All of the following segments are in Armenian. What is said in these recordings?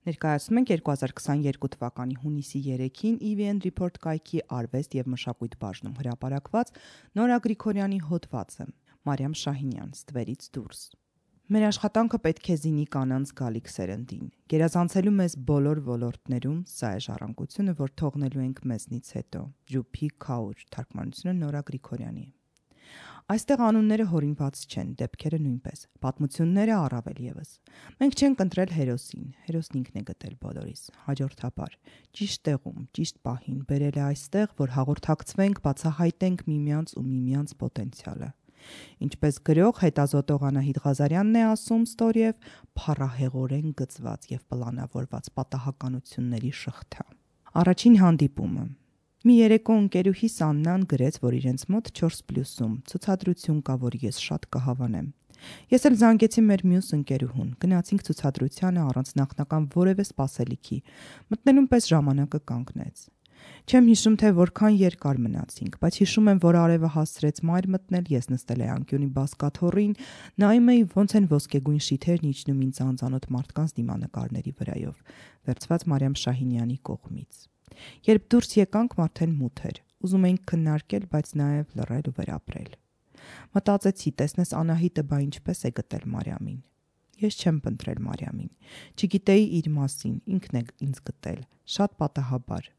Ներկայացնում ենք 2022 թվականի հունիսի 3-ին EVN Report կայքի արվեստ և մշակույթ բաժնում հրապարակված Նորա Գրիգորյանի հոդվածը Մարիամ Շահինյան «Ստվերից դուրս»։ Մեր աշխատանքը պետք է զինի կանանց գալիք սերնդին, գերազանցելու մեզ բոլոր ոլորտներում, սա է ժառանգությունը, որ թողնելու ենք մեզնից հետո։ Ջուփի Քաուր, թարգմանությունը Նորա Գրիգորյանի։ Այստեղ անունները հորինված չեն, դեպքերը նույնպես, պատմությունները առավել ևս։ Մենք չենք ընտրել հերոսին, հերոսն ինքն է գտել բոլորիս, հաջորդաբար, ճիշտ տեղում, ճիշտ պահին բերել է այստեղ, որ հաղորդակցվենք, բացահայտենք միմյանց ու միմյանց պոտենցիալը։ Ինչպես գրող հետազոտող Անահիտ Ղազարյանն է ասում ստորև, փառահեղորեն գծված և պլանավորված պատահականությունների շղթա։ Առաջին հանդիպումը։ Մի երեկո ընկերուհիս Աննան գրեց, որ իրենց մոտ 4+-ում ցուցադրություն կա, որ ես շատ կհավանեմ։ Ես էլ զանգեցի մեր մյուս ընկերուհուն, գնացինք ցուցադրությանը առանց նախնական որևէ սպասելիքի, մտնելուն պես ժամանակը կանգնեց։ Չեմ հիշում, թե որքան երկար մնացինք, բայց հիշում եմ, որ արևը հասցրեց մայր մտնել, ես նստել էի անկյունի բազկաթոռին, նայում էի ոնց են ոսկեգույն շիթերն իջնում ինձ անծանոթ մարդկանց դիմանկարների վրայով, վերցված Մարիամ Շահինյանի կողմից։ Երբ դուրս եկանք, արդեն մութ էր, ուզում էինք քննարկել, բայց նաև լռել ու վերապրել։ Մտածեցի, տեսնես Անահիտը բա ինչպես է գտել Մարիամին։ Ես չեմ փնտրել Մարիամին, չգիտեի իր մասին, ինքն է ինձ գտել, շատ պատահաբար։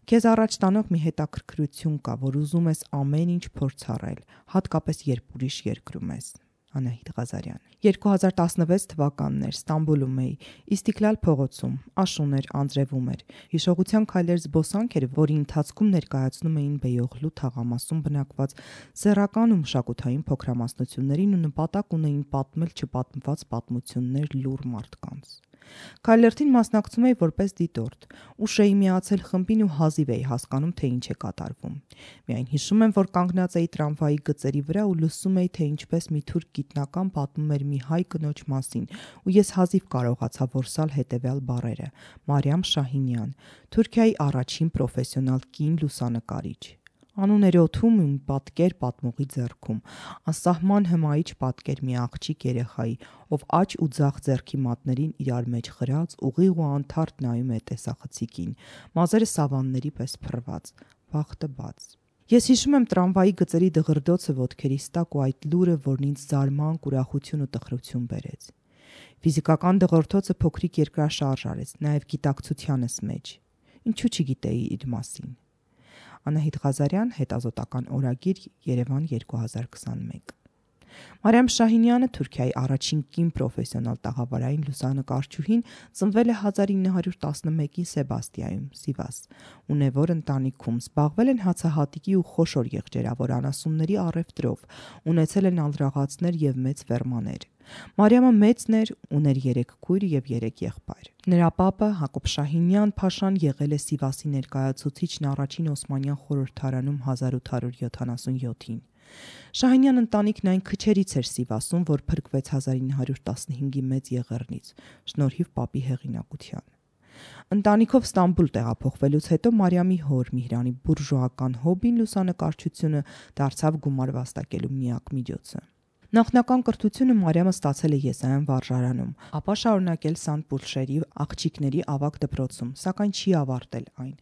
Քեզ առաջ տանող մի հետաքրքրություն կա, որ ուզում ես ամեն ինչ փորձառել, հատկապես երբ ուրիշ երկրում ես։ Անահիտ Ղազարյան 2016 թվականն էր, Ստամբուլում էի, Իստիքլալ փողոցում, աշուն էր, անձրևում էր, հիշողության քայլեր զբոսանք էր, որի ընթացքում ներկայացնում էին Բեյողլու թաղամասում բնակված սեռական ու մշակութային փոքրամասնություններին ու նպատակ ունեին պատմել չպատմված պատմություններ լուռ մարդկանց։ Քայլերթին մասնակցում էի որպես դիտորդ, ուշ էի միացել խմբին ու հազիվ էի հասկանում, թե ինչ է կատարվում։ Միայն հիշում եմ, որ կանգնած էի տրամվայի գծերի վրա ու լսում էի, թե ինչպես մի թուրք գիտնական պատմում էր մի հայ կնոջ մասին, ու ես հազիվ կարողացա որսալ հետևյալ բառերը. Մարիամ Շահինյան, Թուրքիայի առաջին պրոֆեսիոնալ կին լուսանկարիչ։ Անուն էր օդում ու մի պատկեր պատմողի ձեռքում, անսահման հմայիչ պատկեր մի աղջիկ երեխայի, ով աջ ու ձախ ձեռքի մատներին իրար մեջ խրած, ուղիղ ու անթարթ նայում է տեսախցիկին, մազերը սավանների պես փռված, բախտը բաց։ Ես հիշում եմ տրամվայի գծերի դղրդոցը ոտքերիս տակ ու այդ լուրը, որն ինձ զարմանք, ուրախություն ու տխրություն բերեց։ Ֆիզիկական դղրդոցը փոքրիկ երկրաշարժ արեց, նաև գիտակցությանս մեջ։ Ինչու չգիտեի իր մասին։ Անահիտ Ղազարյան, հետազոտական օրագիր, Երևան 2021։ Մարիամ Շահինյանը, Թուրքիայի առաջին կին պրոֆեսիոնալ տաղավարային լուսանկարչուհին, ծնվել է 1911-ի Սեբաստիայում, Սիվաս, ունևոր ընտանիքում, զբաղվել են հացահատիկի ու խոշոր եղջերավոր անասունների առևտրով, ունեցել են ալրաղացներ և մեծ ֆերմաներ։ Մարիամը մեծն էր, ուներ 3 քույր և 3 եղբայր։ Նրա պապը Հակոբ Շահինյան փաշան եղել է Սիվասի ներկայացուցիչն առաջին Օսմանյան խորհրդարանում 1877-ին։ Շահինյան ընտանիքն այն քչերից էր Սիվասում, որ փրկվեց 1915-ի մեծ եղեռնից, շնորհիվ պապի հեղինակության։ Ընտանիքով Ստամբուլ տեղափոխվելուց հետո Մարիամի հոր Միհրանի բուրժուական հոբին լուսանկարչությունը դարձավ գումար վաստակելու միակ միջոցը։ Նախնական կրթությունը Մարիամը ստացել է Եսայան վարժարանում, ապա շարունակել Սանտ-Պուլշերի աղջիկների ավագ դպրոցում, սակայն չի ավարտել այն։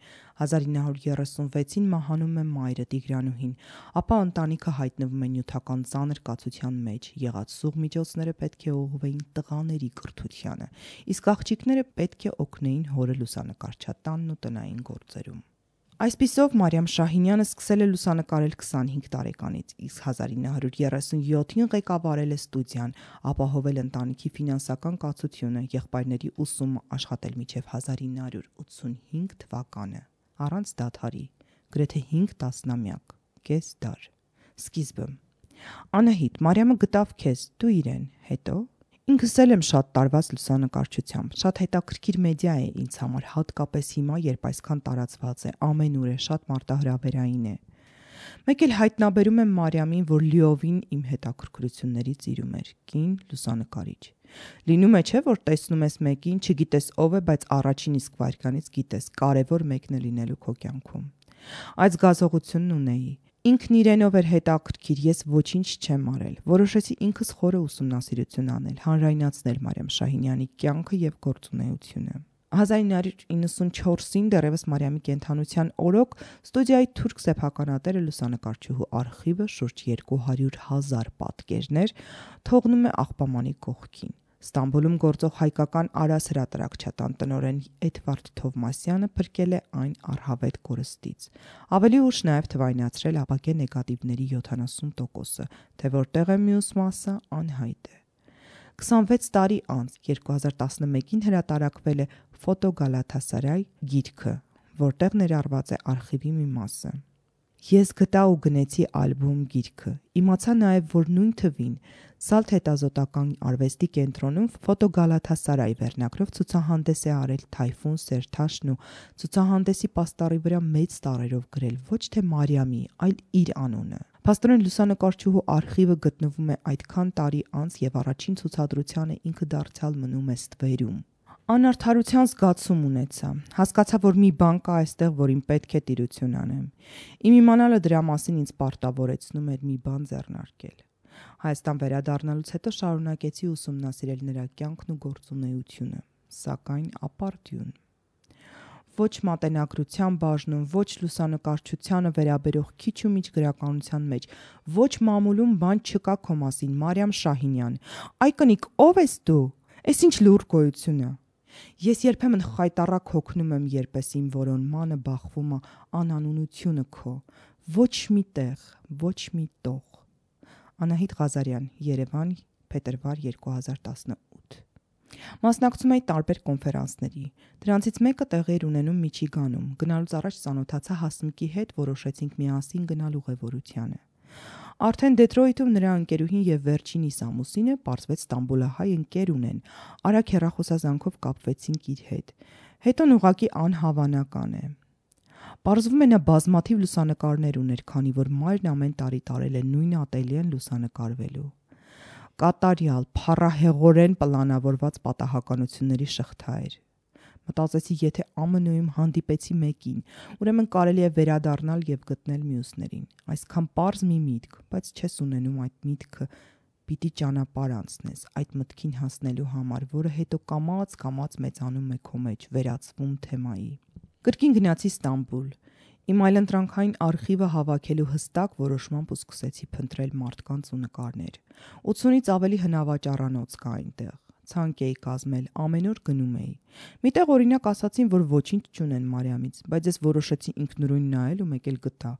1936-ին մահանում է մայրը Տիգրանուհին, ապա ընտանիքը հայտնվում է նյութական ծանր կացության մեջ, եղած սուղ միջոցները պետք է ուղղվեին տղաների կրթությանը, իսկ աղջիկները պետք է օգնեին հորը լուսանկարչատանն ու տնային գործերում։ Այսպիսով Մարիամ Շահինյանը սկսել է լուսանկարել 25 տարեկանից, իսկ 1937-ին ղեկավարել է ստուդիան, ապահովել ընտանիքի ֆինանսական կացությունը, եղբայրների ուսումը, աշխատել մինչև 1985 թվականը, առանց դադարի, գրեթե 5 տասնամյակ, կես դար։ Սկիզբը։ Անահիտ, Մարիամը գտավ քեզ, դու իրեն, հետո։ Ինքս էլ եմ շատ տարված լուսանկարչությամբ, շատ հետաքրքիր մեդիա է ինձ համար, հատկապես հիմա, երբ այսքան տարածված է, ամենուր է, շատ մարտահրավերային է։ Մեկ էլ հայտնաբերում եմ Մարիամին, որ լիովին իմ հետաքրքրություններից իրում էր, կին լուսանկարիչ։ Լինում է չէ, որ տեսնում ես մեկին, չգիտես ով է, բայց առաջին իսկ վայրկյանից գիտես, կարևոր մեկն է լինելու քո կյանքում։ Այդ զգացողությունն ունեի։ Ինքն իրենով էր հետաքրքիր, ես ոչինչ չեմ արել։ Որոշեցի ինքս խորը ուսումնասիրություն անել, հանրայնացնել Մարիամ Շահինյանի կյանքը և գործունեությունը։ 1994-ին դեռևս Մարիամի կենդանության օրոք ստուդիայի թուրք սեփականատերը լուսանկարչուհու արխիվը շուրջ 200,000 պատկերներ թողնում է աղբամանի կողքին։ Ստամբուլում գործող հայկական Արաս հրատարակչատան տնօրեն Էդվարդ Թովմասյանը փրկել է այն առհավետ կորստից։ Ավելի ուշ նաև թվայնացրել ապակե նեգատիվների 70%-ը, թե որտեղ է մյուս մասը անհայտ է։ 26 տարի անց 2011-ին հրատարակվել է «Ֆոտո Գալաթասարայ» գիրքը, որտեղ ներառված է արխիվի մի մասը։ Ես գտա ու գնեցի ալբոմ գիրքը։ Իմացա նաև, որ նույն թվին Սալթ հետազոտական արվեստի կենտրոնում «Ֆոտո Գալաթասարայ» վերնագրով ցուցահանդես է արել Թայֆուն Սերթաշն ու ցուցահանդեսի պաստառի վրա մեծ տառերով գրել ոչ թե Մարիամի, այլ իր անունը։ Փաստորեն լուսանկարչուհու արխիվը գտնվում է այդքան տարի անց եւ առաջին ցուցադրությանը ինքը դարձյալ մնում է ստվերում։ Անարդարության զգացում ունեցա։ Հասկացա, որ մի բան կա այստեղ, որին պետք է տիրություն անեմ։ Իմ իմանալը դրա մասին ինձ պարտավորեցնում էր մի բան ձեռնարկել։ Հայաստան վերադառնալուց հետո շարունակեցի ուսումնասիրել նրա կյանքն ու գործունեությունը, սակայն ապարդյուն։ Ոչ մատենագրության բաժնում, ոչ լուսանկարչությանը վերաբերող քիչ ու միջ գրականության մեջ, ոչ մամուլում բան չկա քո մասին, Մարիամ Շահինյան։ Այ կնիկ, ո՞վ ես դու։ Էս ինչ լուր գոյություն է։ Ես երբեմն խայտառակ հոգնում եմ, երբ իմ որոնմանը բախվում է անանունությունը քո։ Ոչ մի տեղ, ոչ մի տող։ Անահիտ Ղազարյան, Երևան, փետրվար 2018։ Մասնակցում էի տարբեր կոնֆերանսների։ Դրանցից մեկը տեղի էր ունենում Միչիգանում։ Գնալուց առաջ ծանոթացա Հասմիկի հետ, որոշեցինք միասին գնալ ուղևորությանը։ Արդեն Դեթրոյթում նրա ընկերուհին եւ վերջինիս ամուսինը պարզվեց Ստամբուլահայ ընկեր ունեն։ Արագ հեռախոսազանգով կապվեցինք իր հետ։ Հետոն ուղակի անհավանական է։ Պարզվում է նա բազմաթիվ լուսանկարներ ուներ, քանի որ մայրն ամեն տարի տարել է նույն ատելյեն լուսանկարվելու։ Կատարյալ, փառահեղորեն պլանավորված պատահականությունների շղթա էր։ Մտածեցի, եթե ԱՄՆ-ում հանդիպեցի մեկին, ուրեմն կարելի է վերադառնալ եւ գտնել մյուսներին։ Այսքան պարզ մի միտք, բայց չես ունենում այդ միտքը, պիտի ճանապարհ անցնես այդ մտքին հասնելու համար, որը հետո կամաց մեծանում է քո մեջ, վերածվում թեմայի։ Կրկին գնացի Ստամբուլ։ Իմ այլընտրանքային արխիվը հավաքելու հստակ որոշմամբ ու սկսեցի փնտրել մարդկանց ու նկարներ։ 80-ից ավելի հնավաճառանոց կա այնտեղ։ Ցանկ էի կազմել, ամեն օր գնում էի։ Միտեղ օրինակ ասացին, որ ոչինչ չունեն Մարիամից, բայց ես որոշեցի ինքնուրույն նայել ու մեկ էլ գտա։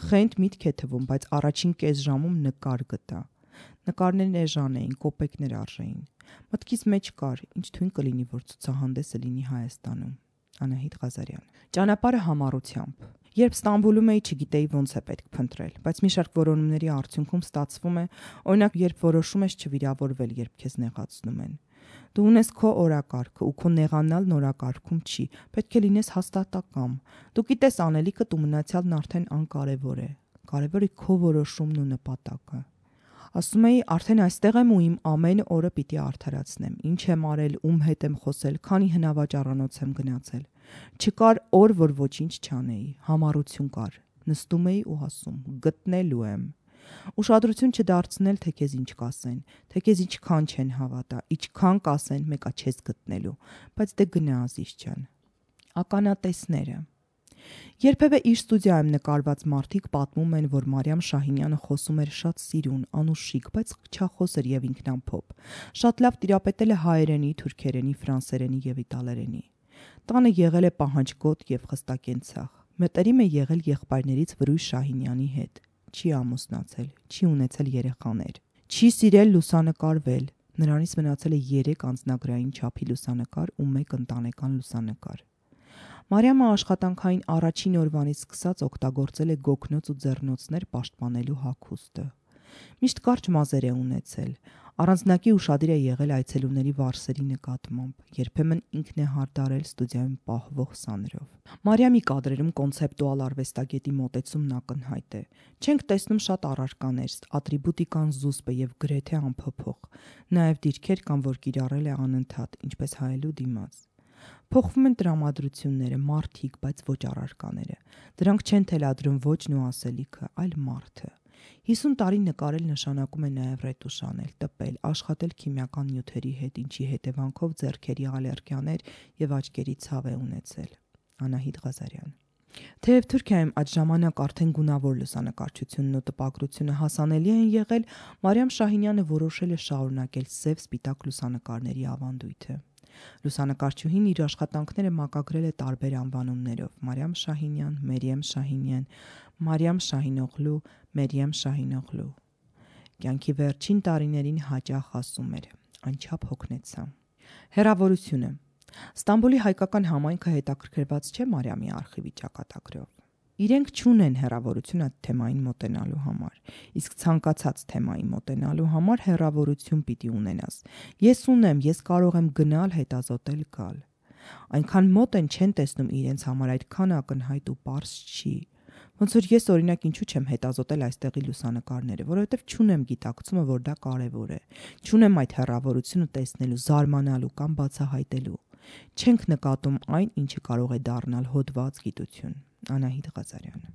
Խենթ միտք է թվում, բայց առաջին կես ժամում նկար գտա։ Նկարներն էժան էին, կոպեկներ արժեին։ Մտքիս մեջ կար, ինչ թույն կլինի, որ ցուցահանդեսը լինի Հայաստանում։ Անահիտ Ղազարյան։ Ճանապարհը համառությամբ։ Երբ Ստամբուլում էի, չգիտեի ոնց է պետք փնտրել, բայց մի շարք որոնումների արդյունքում ստացվում է, օրինակ, երբ որոշում ես չվիրավորվել, երբ քեզ նեղացնում են։ Դու ունես քո օրակարգը ու քո նեղանալն օրակարգում չի, պետք է լինես հաստատակամ։ Դու գիտես անելիքդ ու մնացյալն արդեն անկարևոր է։ Կարևորը քո որոշումն ու նպատակը։ Ասում էի, արդեն այստեղ եմ ու իմ ամեն օրը պիտի արդարացնեմ։ Ինչ եմ արել, ում հետ եմ խոսել, քանի հնավաճառանոց եմ գնացել։ Չկար օր, որ ոչինչ չանեի, համառություն կար։ Նստում էի ու ասում, գտնելու եմ։ Ուշադրություն չդարձնել, թե քեզ ինչ կասեն, թե քեզ ինչքան չեն հավատա, ինչքան կասեն, մեկա չես գտնելու, բայց դե գնա Ազիզ ջան։ Ականատեսները։ Երբևէ իր ստուդիայում նկարված մարդիկ պատմում են, որ Մարիամ Շահինյանը խոսում էր շատ սիրուն, անուշիկ, բայց խղճախոս էր եւ ինքնամփոփ։ Շատ լավ տիրապետել է հայերենի, թուրքերենի, ֆրանսերենի եւ իտալերենի։ Տանը եղել է պահանջկոտ եւ խստակենցաղ։ Մտերիմ է եղել եղբայրներից Վրույժ Շահինյանի հետ։ Չի ամուսնացել, չի ունեցել երեխաներ, չի սիրել լուսանկարվել։ Նրանից մնացել է 3 անձնագրային չափի լուսանկար ու 1 ընտանեկան լուսանկար։ Մարիամը աշխատանքային առաջին օրվանից սկսած օգտագործել է գոգնոց ու ձեռնոցներ պաշտպանելու հագուստը։ Միշտ կարճ մազեր է ունեցել։ Առանձնակի ուշադիր է եղել այցելուների վարսերի նկատմամբ։ Երբեմն ինքն է հարդարել ստուդիայում պահվող սաներով։ Մարիամի կադրերում կոնցեպտուալ արվեստագետի մոտեցումն ակնհայտ է։ Չենք տեսնում շատ առարկաներ, ատրիբուտիկան զուսպ է եւ գրեթե անփոփոխ։ Նաեւ դիրքեր կան, որ կիրառել է անընդհատ, ինչպես հայելու դիմաց։ Փոխվում են տրամադրությունները, մարդիկ, բայց ոչ առարկաները։ Դրանք չեն թելադրում ոչն ու ասելիքը, այլ մարդը։ 50 տարի նկարել նշանակում է նաև ռետուշ անել, տպել, աշխատել քիմիական նյութերի հետ, ինչի հետևանքով ձեռքերի ալերգիաներ եւ աչքերի ցավ է ունեցել։ Անահիտ Ղազարյան։ Թեև Թուրքիայում այդ ժամանակ արդեն գունավոր լուսանկարչությունն ու տպագրությունը հասանելի են եղել, Մարիամ Շահինյանը որոշել է շարունակել սև-սպիտակ լուսանկարների ավանդույթը։ Լուսանկարչուհին իր աշխատանքները մակագրել է տարբեր անվանումներով՝ Մարիամ Շահինյան, Մերիեմ Շահինյան, Մարիամ Շահինօղլու, Մերիեմ Շահինօղլու։ Կյանքի վերջին տարիներին հաճախ ասում էր. «Անչափ հոգնեցա»։ Հեռավորությունը։ Ստամբուլի հայկական համայնքը հետաքրքրված չէ Մարիամի արխիվի ճակատագրով։ Իրենք չունեն հեռավորություն այդ թեմային մոտենալու համար, իսկ ցանկացած թեմայի մոտենալու համար հեռավորություն պիտի ունենաս։ Ես ունեմ, ես կարող եմ գնալ, հետազոտել, գալ։ Այնքան մոտ են չեն տեսնում իրենց համար, այդքան ակնհայտ ու պարզ չի։ Ոնց որ ես օրինակ ինչու չեմ հետազոտել այստեղի լուսանկարները, որովհետև չունեմ գիտակցումը, որ դա կարևոր է։ Չունեմ այդ հեռավորությունը տեսնելու, զարմանալու կամ բացահայտելու։ Չենք նկատում այն, ինչը կարող է դառնալ հոդված գիտություն։ Անահիտ Ղազարյան։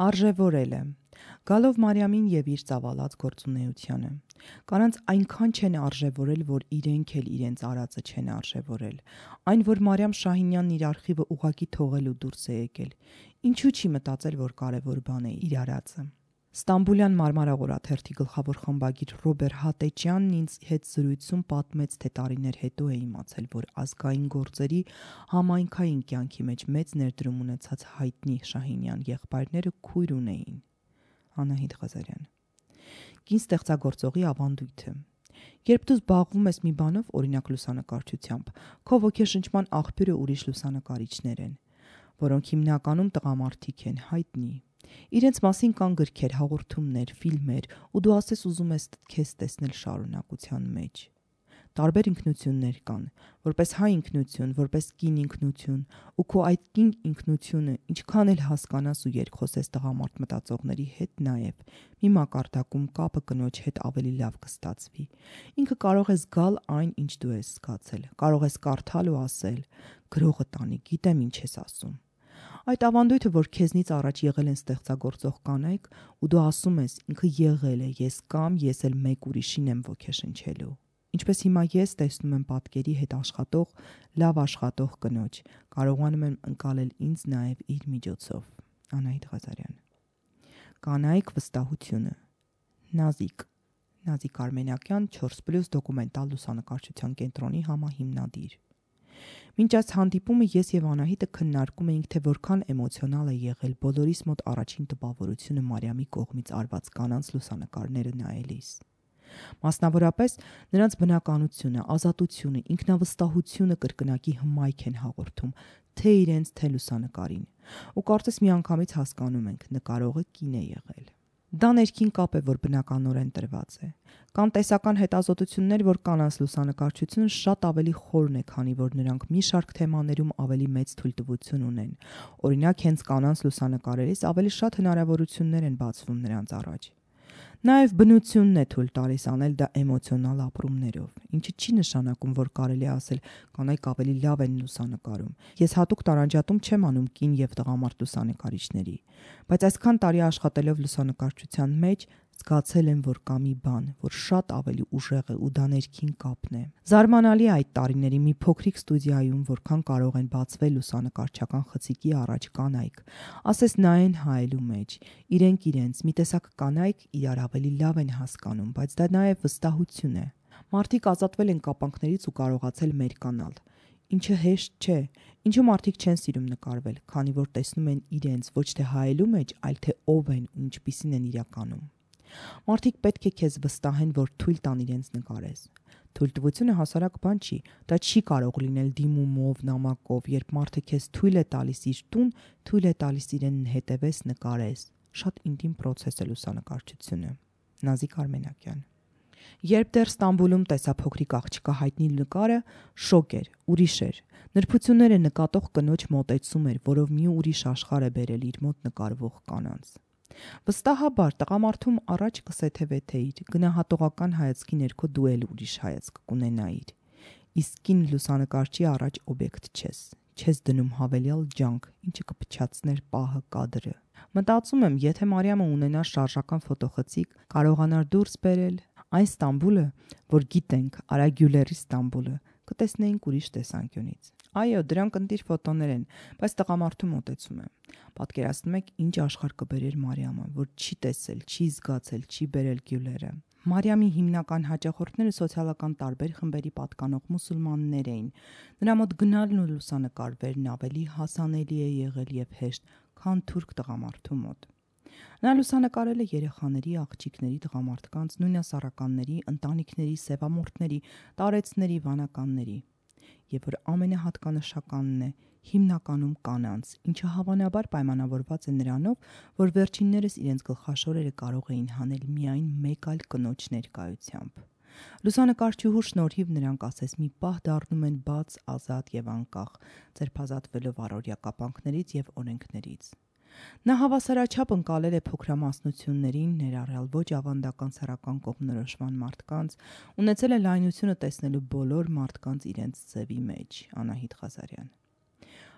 Արժևորելը։ Գալով Մարիամին եւ իր ծավալած գործունեությանը։ Կանանց այնքան չեն արժևորել, որ իրենք էլ իրենց արածը չեն արժևորել։ Այն, որ Մարիամ Շահինյանն իր արխիվը ուղակի թողել ու դուրս է եկել։ Ինչու չի մտածել, որ կարևոր բան է իր արածը։ Ստամբուլյան Մարմարաղորաթերթի գլխավոր խմբագիր Ռոբեր Հատեչյանն ինձ հետ զրույցում պատմեց, թե տարիներ հետո է իմացել, որ ազգային գործերի համայնքային կյանքի մեջ մեծ ներդրում ունեցած հայտնի Շահինյան եղբայրները քույր ունեին։ Անահիտ Ղազարյան։ Կին ստեղծագործողի ավանդույթը։ Երբ դու զբաղվում ես մի բանով, օրինակ լուսանկարչությամբ, քո ոգեշնչման աղբյուրը ուրիշ լուսանկարիչներ են, որոնք հիմնականում տղամարդիկ են, հայտնի։ Իրենց մասին կան գրքեր, հաղորդումներ, ֆիլմեր, ու դու ասես ուզում ես քեզ տեսնել շարունակության մեջ։ Տարբեր ինքնություններ կան, որպես հայ ինքնություն, որպես կին ինքնություն, ու քո այդ կին ինքնությունը ինչքան էլ հասկանաս ու երկխոսես տղամարդ մտածողների հետ նաև, մի մակարդակում կապը կնոջ հետ ավելի լավ կստացվի։ Ինքը կարող է զգալ այն, ինչ դու ես զգացել, կարող ես կարդալ ու ասել, գրողը տանի, գիտեմ ինչ ես ասում։ Այդ ավանդույթը, որ քեզնից առաջ եղել են ստեղծագործող կանայք, ու դու ասում ես, ինքը եղել է, ես կամ ես էլ մեկ ուրիշին եմ ոգեշնչելու։ Ինչպես հիմա ես տեսնում եմ պատկերի հետ աշխատող, լավ աշխատող կնոջ, կարողանում եմ ընկալել ինձ նաև իր միջոցով։ Անահիտ Ղազարյան։ Կանայք վստահությունը։ Նազիկ Արմենակյան 4+ դոկումենտալ լուսանկարչության կենտրոնի համահիմնադիր։ Մինչ այս հանդիպումը ես եւ Անահիտը քննարկում էինք, թե որքան էմոցիոնալ է եղել բոլորիս մոտ առաջին տպավորությունը Մարիամի կողմից արված կանանց լուսանկարները նայելիս։ Մասնավորապես նրանց բնականությունը, ազատությունը, ինքնավստահությունը կրկնակի հմայք են հաղորդում թե իրենց, թե լուսանկարին։ Ու կարծես միանգամից հասկանում ենք, նկարողը կին է եղել։ Դա ներքին կապ է, որ բնականորեն տրված է։ Կան տեսական հետազոտություններ, որ կանանց լուսանկարչությունը շատ ավելի խորն է, քանի որ նրանք մի շարք թեմաներում ավելի մեծ թույլտվություն ունեն։ Օրինակ, հենց կանանց լուսանկարելիս ավելի շատ հնարավորություններ են բացվում նրանց առաջ։ Նաև բնությունն է թույլ տալիս անել դա էմոցիոնալ ապրումներով, ինչը չի նշանակում, որ կարելի է ասել կանայք ավելի լավ են լուսանկարում։ Ես հատուկ տարանջատում չեմ անում կին եւ տղամարդ լուսանկարիչների, բայց այսքան տարի աշխատելով լուսանկարչության մեջ զգացել եմ, որ կա մի բան, որ շատ ավելի ուժեղ է ու դա ներքին կապն է։ Զարմանալի է այդ տարիների մի փոքրիկ ստուդիայում որքան կարող են բացվել լուսանկարչական խցիկի առաջ կանայք, ասես նայեն հայելու մեջ, իրենք իրենց, մի տեսակ կանայք իրար ավելի լավ են հասկանում, բայց դա նաև վստահություն է։ Մարդիկ ազատվել են կապանքներից ու կարողացել մերկանալ, ինչը հեշտ չէ, ինչու մարդիկ չեն սիրում նկարվել, քանի որ տեսնում են իրենց ոչ թե հայելու մեջ, այլ թե ով են ու ինչպիսին են իրականում։ Մարդիկ պետք է քեզ վստահեն, որ թույլ տան իրենց նկարես։ Թույլտվությունը հասարակ բան չի, դա չի կարող լինել դիմումով, նամակով, երբ մարդը քեզ թույլ է տալիս իր տուն, թույլ է տալիս իրեն հետևես, նկարես։ Շատ ինտիմ պրոցես է լուսանկարչությունը։ Նազիկ Արմենակյան։ Երբ դեռ Ստամբուլում տեսա փոքրիկ աղջկա հայտնի նկարը, շոկ էր, ուրիշ էր։ Նրբությունները նկատող կնոջ մոտեցում էր, որով մի ուրիշ աշխարհ է բերել իր մոտ նկարվող կանանց։ Վստահաբար տղամարդում առաջ կսեթևեթեիր, գնահատողական հայացքի ներքո դու էլ ուրիշ հայացք կունենայիր։ Իսկ կին լուսանկարչի առաջ օբյեկտ չես դնում հավելյալ ջանք, ինչը կփչացներ պահը, կադրը։ Մտածում եմ, եթե Մարիամը ունենար շարժական ֆոտոխցիկ, կարողանար դուրս բերել այն Ստամբուլը, որ գիտենք, Արա Գյուլերի Ստամբուլը, կտեսնեինք ուրիշ տեսանկյունից։ Այո, դրանք ընտիր ֆոտոներ են, բայց տղամարդու մոտեցում է։ Պատկերացնում եք, ինչ աշխարհ կբերեր Մարիամը, որ չի տեսել, չի զգացել, չի բերել Գյուլերը։ Մարիամի հիմնական հաճախորդները սոցիալական տարբեր խմբերի պատկանող մուսուլմաններ էին։ Նրա մոտ գնալն ու լուսանկարվելն ավելի հասանելի է եղել եւ հեշտ, քան թուրք տղամարդու մոտ։ Նա լուսանկարել է երեխաների, աղջիկների, տղամարդկանց, նույնասառականների, ընտանիքների, սևամորթների, տարեցների, վանականների։ Եվ որ ամենահատկանշականն է, հիմնականում կանանց, ինչը հավանաբար պայմանավորված է նրանով, որ վերջիններս իրենց գլխաշորերը կարող էին հանել միայն մեկ այլ կնոջ ներկայությամբ։ Լուսանկարչուհու շնորհիվ նրանք ասես մի պահ դառնում են բաց, ազատ եւ անկախ, ձերբազատվելով առօրյա կապանքներից եւ օրենքներից։ Նա հավասարաչափ ընկալել է փոքրամասնություններին, ներառյալ ոչ ավանդական սեռական կողմնորոշման մարդկանց, ունեցել է լայնությունը տեսնելու բոլոր մարդկանց իրենց ձևի մեջ։ Անահիտ Ղազարյան։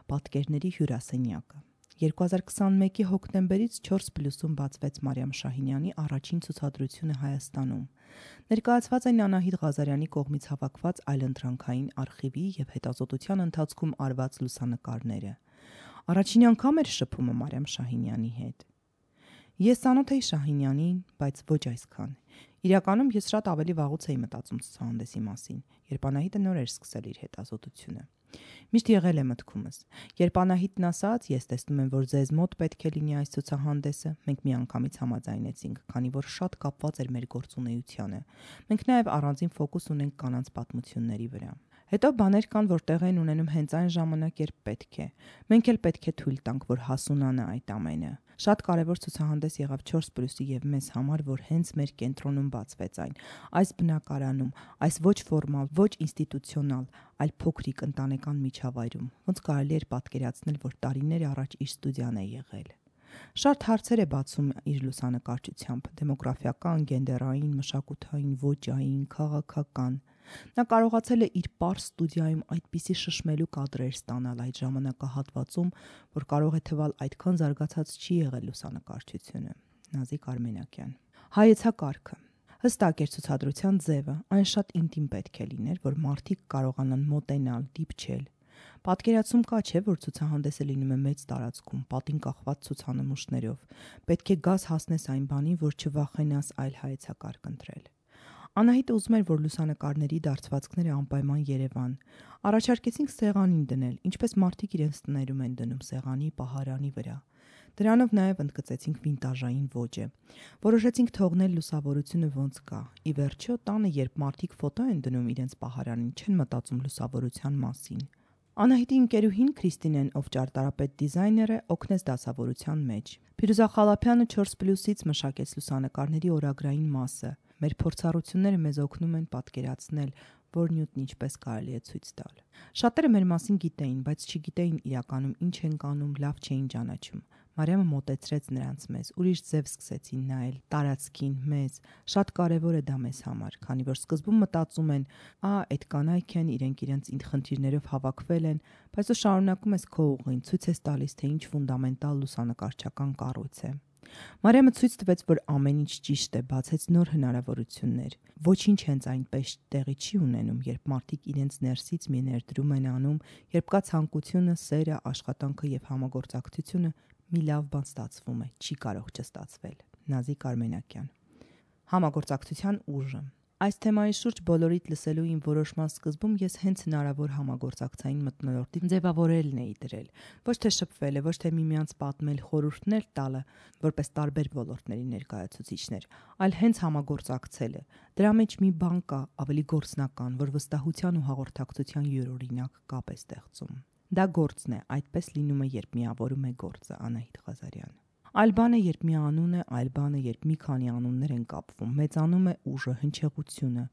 Պատկերների հյուրասենյակը 2021-ի հոկտեմբերից 4+-ում բացվեց Մարիամ Շահինյանի առաջին ցուցադրությունը Հայաստանում։ Ներկայացված են Անահիտ Ղազարյանի կողմից հավաքված այլընտրանքային արխիվի եւ հետազոտության ընթացքում արված լուսանկարները։ Առաջին անգամ էր շփումը Մարիամ Շահինյանի հետ։ Ես ծանոթ էի Շահինյանին, բայց ոչ այսքան։ Իրականում ես շատ ավելի վաղուց էի մտածում ցուցահանդեսի մասին, երբ Անահիտը նոր էր սկսել իր հետազոտությունը։ Միշտ եղել է մտքումս։ Երբ Անահիտն ասաց, ես տեսնում եմ, որ ձեզ մոտ պետք է լինի այս ցուցահանդեսը, մենք միանգամից համաձայնեցինք, քանի որ շատ կապված էր մեր գործունեությանը։ Մենք նաև առանձին ֆոկուս ունենք կանանց պատմությունների վրա։ Հետո բաներ կան, որ տեղ են ունենում հենց այն ժամանակ, երբ պետք է։ Մենք էլ պետք է թույլ տանք, որ հասունանա այդ ամենը։ Շատ կարևոր ցուցահանդես եղավ 4+-ի եւ մեզ համար, որ հենց մեր կենտրոնում բացվեց այն, այս բնակարանում, այս ոչ ֆորմալ, ոչ ինստիտուցիոնալ, այլ փոքրիկ ընտանեկան միջավայրում, ոնց կարելի էր պատկերացնել, որ տարիներ առաջ իր ստուդիան է եղել։ Շատ հարցեր է բացում իր լուսանկարչությամբ՝ դեմոգրաֆիական, գենդերային, մշակութային, ոճային, քաղաքական։ Նա կարողացել է իր պարզ ստուդիայում այդպիսի շշմելու կադրեր ստանալ այդ ժամանակահատվածում, որ կարող է թվալ այդքան զարգացած չի եղել լուսանկարչությունը։ Նազիկ Արմենякյան։ Հայեցակարգը հստակ էր ցուցադրության ձևը, այն շատ ինտիմ պետք է լիներ, որ մարդիկ կարողանան մոտենալ, դիպչել։ Պատկերացում կա, չէ, որ ցուցահանդեսը լինում է մեծ տարածքում, պատին կախված ցուցանմուշներով։ Պետք է գաս հասնես այն բանին, որ չվախենաս այլ հայեցակարգ ընտրել։ Անահիտը ուզում էր, որ լուսանկարների դարձվածքները անպայման Երևան։ Առաջարկեցինք սեղանին դնել, ինչպես մարդիկ իրենց տներում են դնում սեղանի, պահարանի վրա։ Դրանով նաև ընդգծեցինք վինտաժային ոճը։ Որոշեցինք թողնել լուսավորությունը ոնց կա։ Ի վերջո, տանը, երբ մարդիկ ֆոտո են դնում իրենց պահարանին, չեն մտածում լուսավորության մասին։ Անահիտի ընկերուհին Քրիստինեն, ով ճարտարապետ դիզայներ է, օգնեց դասավորության մեջ։ Փիրուզա Խալափյանը 4+-ից մշակեց լուսանկարների օրագրային մասը։ Մեր փորձառությունները մեզ օգնում են պատկերացնել, որ նյութն ինչպես կարելի է ցույց տալ։ Շատերը մեր մասին գիտեին, բայց չգիտեին իրականում ինչ ենք անում, լավ չէին ճանաչում։ Մարիամը մոտեցրեց նրանց մեզ, ուրիշ ձև սկսեցին նայել, տարածքին, մեզ։ Շատ կարևոր է դա մեզ համար, քանի որ սկզբում մտածում են, այդ կանայք են, իրենց խնդիրներով հավաքվել են, բայց դու շարունակում ես քո ուղին, ցույց ես տալիս, թե ինչ ֆունդամենտալ լուսանկարչական կառույց է։ Մարիամը ցույց տվեց, որ ամեն ինչ ճիշտ է, բացեց նոր հնարավորություններ։ Ոչինչ հենց այնպես տեղի չի ունենում, երբ մարդիկ իրենց ներսից մի ներդրում են անում, երբ կա ցանկությունը, սերը, աշխատանքը եւ համագործակցությունը, մի լավ բան ստացվում է, չի կարող չստացվել։ Նազիկ Արմենякյան։ Համագործակցության ուժը։ Այս թեմայի շուրջ բոլորիդ լսելու իմ որոշման սկզբում ես հենց հնարավոր համագործակցային մթնոլորտի ձևավորելն էի դրել։ Ոչ թե շփվելը, ոչ թե միմյանց պատմել, խորհուրդներ տալը, որպես տարբեր ոլորտների ներկայացուցիչներ, այլ հենց համագործակցելը։ Դրա մեջ մի բան կա, ավելի գործնական, որ վստահության ու հաղորդակցության յուրօրինակ կապ է ստեղծում։ Դա գործն է, այդպես լինում է, երբ միավորում է գործը։ Անահիտ Ղազարյան։ Այլ բան է, երբ մի անուն է, այլ բան է, երբ մի քանի անուններ են կապվում, մեծանում է ուժը, հնչեղությունը։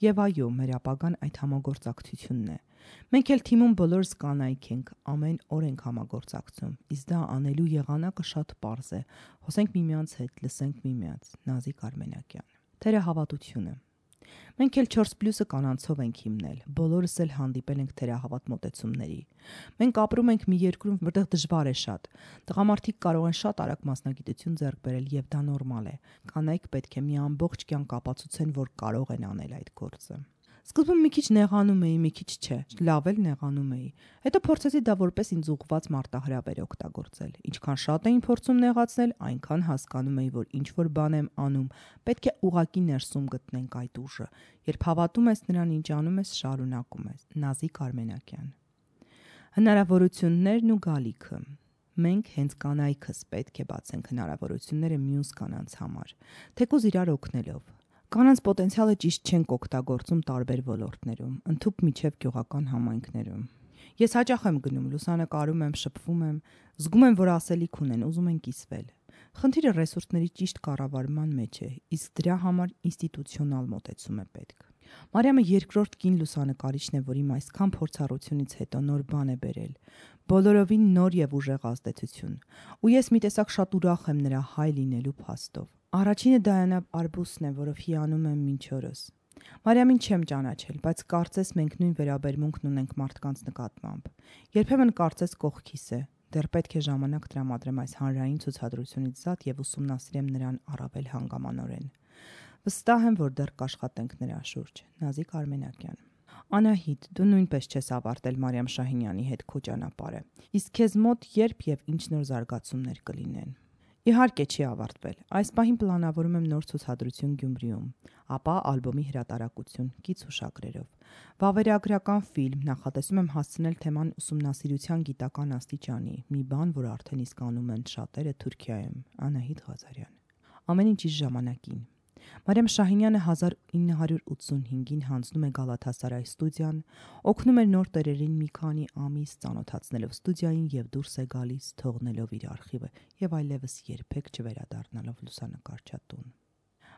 Եվ այո, մեր ապագան այդ համագործակցությունն է։ Մենք էլ թիմում բոլորս կանայք ենք, ամեն օր ենք համագործակցում, իսկ դա անելու եղանակը շատ պարզ է։ Խոսենք միմյանց հետ, լսենք միմյանց։ Նազիկ Արմենякյան։ Թերահավատությունը։ Մենք էլ 4+-ը կանանցով ենք հիմնել, բոլորս էլ հանդիպել ենք թերահավատ մոտեցումների։ Մենք ապրում ենք մի երկրում, որտեղ դժվար է շատ։ Տղամարդիկ կարող են շատ արագ մասնագիտություն ձեռք բերել եւ դա նորմալ է։ Կանայք պետք է մի ամբողջ կյանք ապացուցեն, որ կարող են անել այդ գործը։ Սկզբում մի քիչ նեղանում էի, մի քիչ չէ, լավ էլ նեղանում էի։ Հետո փորձեցի դա որպես ինձ ուղղված մարտահրավեր օգտագործել։ Ինչքան շատ էին փորձում նեղացնել, այնքան հասկանում էի, որ ինչ որ բան եմ անում, պետք է ուղակի ներսում գտնենք այդ ուժը։ Երբ հավատում ես նրան, ինչ անում ես, շարունակում ես։ Նազիկ Արմենակյան։ Հնարավորություններն ու գալիքը։ Մենք հենց կանայքս պետք է բացենք հնարավորությունները մյուս կանանց համար, թեկուզ իրար օգնելով։ Կանանց պոտենցիալը ճիշտ չենք օգտագործում տարբեր ոլորտներում, ընդհուպ միջև գյուղական համայնքներում։ Ես հաճախ եմ գնում, լուսանկարում եմ, շփվում եմ, զգում եմ, որ ասելիք ունեն, ուզում են կիսվել։ Խնդիրը ռեսուրսների ճիշտ կառավարման մեջ է, իսկ դրա համար ինստիտուցիոնալ մոտեցում է պետք։ Մարիամը երկրորդ կին լուսանկարիչն է, որ իմ այսքան փորձառությունից հետո նոր բան է բերել, բոլորովին նոր եւ ուժեղ ազդեցություն։ Ու ես մի տեսակ շատ ուրախ եմ նրա հայ լինելու փաստով։ Առաջինը Դայանա Արբուսն է, որով հիանում եմ մինչ օրս։ Մարիամին չեմ ճանաչել, բայց կարծես մենք նույն վերաբերմունքն ունենք մարդկանց նկատմամբ։ Երբեմն կարծես կողքիս է, դեռ պետք է ժամանակ տրամադրեմ այս հանրային ցուցադրությունից զատ եւ ուսումնասիրեմ նրան առավել հանգամանորեն։ Վստահ եմ, որ դեռ կաշխատենք նրա շուրջ։ Նազիկ Արմենակյան։ Անահիտ, դու նույնպես չես ավարտել Մարիամ Շահինյանի հետ քո ճանապարհը։ Իսկ քեզ մոտ երբ եւ ինչ նոր զարգացումներ կլինեն։ Իհարկե չի ավարտվել։ Այս պահին պլանավորում եմ նոր ցուցադրություն Գյումրիում, ապա ալբոմի հրատարակություն կից հուշագրերով։ Վավերագրական ֆիլմ նախատեսում եմ հասցնել թեման ուսումնասիրության գիտական աստիճանի, մի բան, որ արդեն իսկ անում են շատերը Թուրքիայում։ Անահիտ Ղազարյան։ Ամեն ինչ իր ժամանակին։ Մարիամ Շահինյանը 1985-ին հանձնում է Գալաթասարայ ստուդիան, օգնում է նոր տերերին մի քանի ամիս ծանոթացնելով ստուդիային եւ դուրս է գալիս, թողնելով իր արխիվը եւ այլևս երբեք չվերադառնալով լուսանկարչատուն։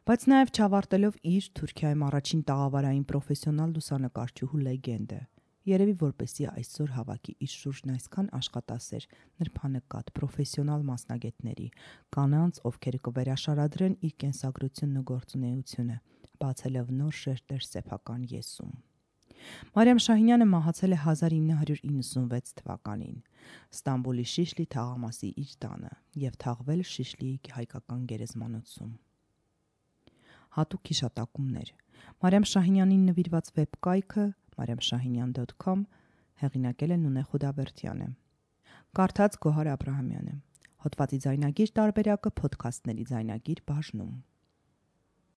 Բայց նաեւ չավարտելով իր Թուրքիայում առաջին տաղավարային պրոֆեսիոնալ լուսանկարչուհու լեգենդը, երևի որպեսզի այսօր հավաքի իր շուրջն այսքան աշխատասեր, նրբանկատ, պրոֆեսիոնալ մասնագետների, կանանց, ովքեր կվերաշարադրեն իր կենսագրությունն ու գործունեությունը, բացելով նոր շերտեր սեփական եսում։ Մարիամ Շահինյանը մահացել է 1996 թվականին Ստամբուլի Շիշլի թաղամասի իր տանը եւ թաղվել Շիշլիի հայկական գերեզմանոցում։ Հատուկ հիշատակումներ։ Մարիամ Շահինյանին նվիրված վեբկայքը mariamshahinyan.com հեղինակել է Նունե Խուդավերդյանը։ Կարդաց Գոհար Աբրահամյանը։ Հոդվածի ձայնագիր տարբերակը Փոդքասթների ձայնագիր բաժնում։